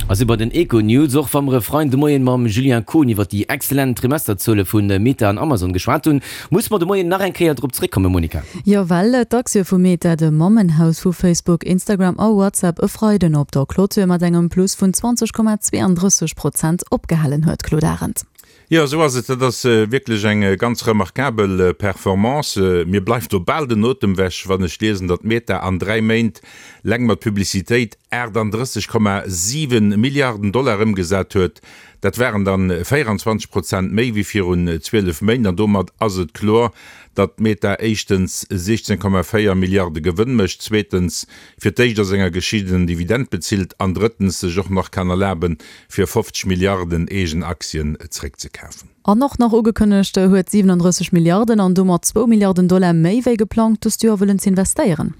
A si bei den Econews. Och wa mer e Freiden de Moien mam Julien Kohn iwwer déi excellent Trimesterzuele vu Meta an Amazon geschwat hunn, musse mer de Moien nach eng Kéier drop zeréckkommen, Monica. Jo, well d'Aktie vu Meta, dem Mammenhaus vu Facebook, Instagram a WhatsApp, e Freiden op der Clôture mat engem Plus vun 20,32 Prozent opgehalen huet, Claude Arend. Jo, esou ass et. Dat ass wierklech eng ganz remarkabel Performance. Mir bleift do bal den Otem wech, wann ech liesen, datt Meta an 3 Méint leng mat Publicitéit 38,7 Milliarden Dollar ëmgesat huet. Dat waren dann 24 Prozent méi wéi virun 12 Méint. An domat ass et kloer, datt Meta éischtens 16,4 Milliarde Gewënn mécht, zweetens fir d'éischt a senger Geschicht en Dividend bezilt an drëttens sech och nach kann erlaben, fir 50 Milliarden eegen Aktien zréckzekafen. An och nach ugekënnegt huet, 37 Milliarden an domat zwou Milliarden Dollar méi wéi geplangt dëst Joer wëllen z'investéieren.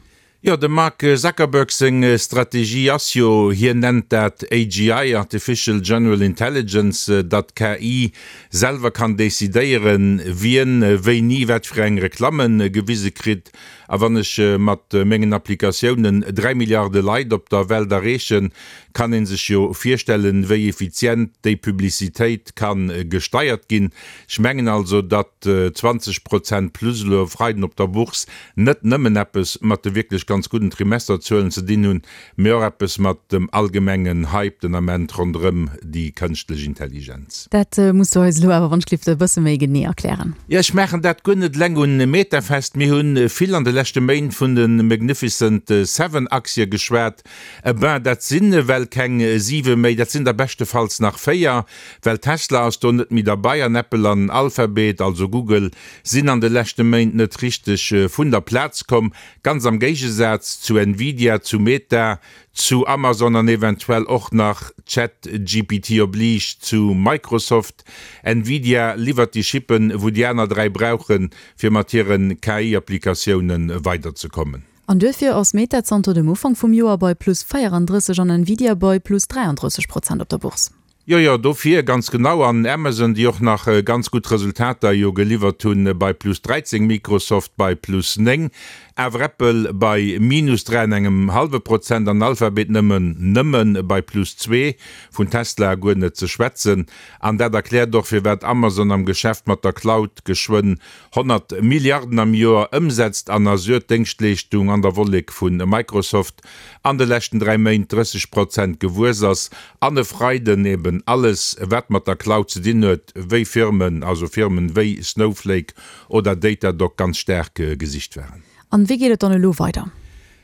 Jo, dem Mark Zuckerberg seng Strategie ass jo, hien nennt dat AGI, Artificial General Intelligence, datt d'KI selwer kann decidéieren, wien wéini wat fir eng Reklamme gewise kritt. A wann ech mat mengen Applikatiounen 3 Milliarde Leit op der Welt erreechen, kann ee sech jo virstellen, wéi effizient déi Publicitéit ka gesteiert ginn. Ech mengen also, datt 20 Prozent plus elo e Freiden op der Bourse net nëmmen eppes mat de wierklech ganz gudden Trimesterzuelen ze dinn hunn, mee och eppes mat dem allgemengen Hype den Ament ronderëm déi kënschtlech Intelligenz. Dat muss du eis elo awer wannschlift e bësse méi genee erklären. Jo, ech maachen dat guer net eleng un Meta fest. Mir hu vill an de leschte Méint vun de Magnificent Seven Aktie geschwat. Eh ben, dat sinn ewell keng siwe méi, dat sinn der beschtefalls nach véier, well Tesla ass do net méi derbei an Apple an Alphabet, also Google, sinn an de leschte Méint net richteg vun der Plaz komm. Ganz am Géigesaz zu Nvidia, zu Meta, zu Amazon an eventuell och nach, ChatGPT oblige, zu Microsoft. Nvidia liwwert déi Chippen, wou déi aner 3 brauchen, fir mat hiren KI-Applikatioune weiderzekommen. An duerfir ass Meta zanter dem Ufank vum Joer bei plus 34 an Nvidia bei plus 33 Prozent op der Bourse. Jo, jo, dofir, ganz genau. An Amazon, déi och nach ganz gutt Resultater jo geliwwert hunn, bei plus 13, Microsoft bei plus 9, awer Apple bei minus 3 an engem hallwe Prozent an Alphabet nëmmen, nëmme bei plus 2, vun Tesla guer net ze schwätzen. An dat erkläert och, firwat Amazon am Geschäft mat der Cloud geschwënn 100 Milliarden am Joer ëmsetzt an Azure, d'Déngschtleeschtung an der Wollek vu Microsoft, an de leschten 3 Méint 30 Prozent gewuess ass an e Freiden eben alles wat mat der Cloud ze dinn huet, wéi Firmen, also Firmen wéi Snowflake oder Datadog ganz staark gesicht waren. An wéi geet et dann elo weider?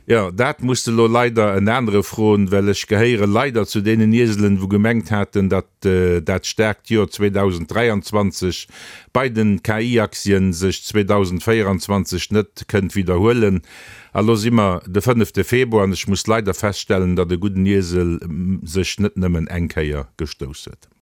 Jo, dat muss de lo leider en anere froen, well ech gehéiere leider zu deenen Ieselen, wou gemengt haten, datt dat staarkt Joer 2023 bei den KI-Aktien sech 2024 net kënnt widderhuelen. A lo si mer de fënnefte Februar an ech muss leider feststellen, datt e gudden Iesel sech net nëmmen eng Kéier gestouss huet.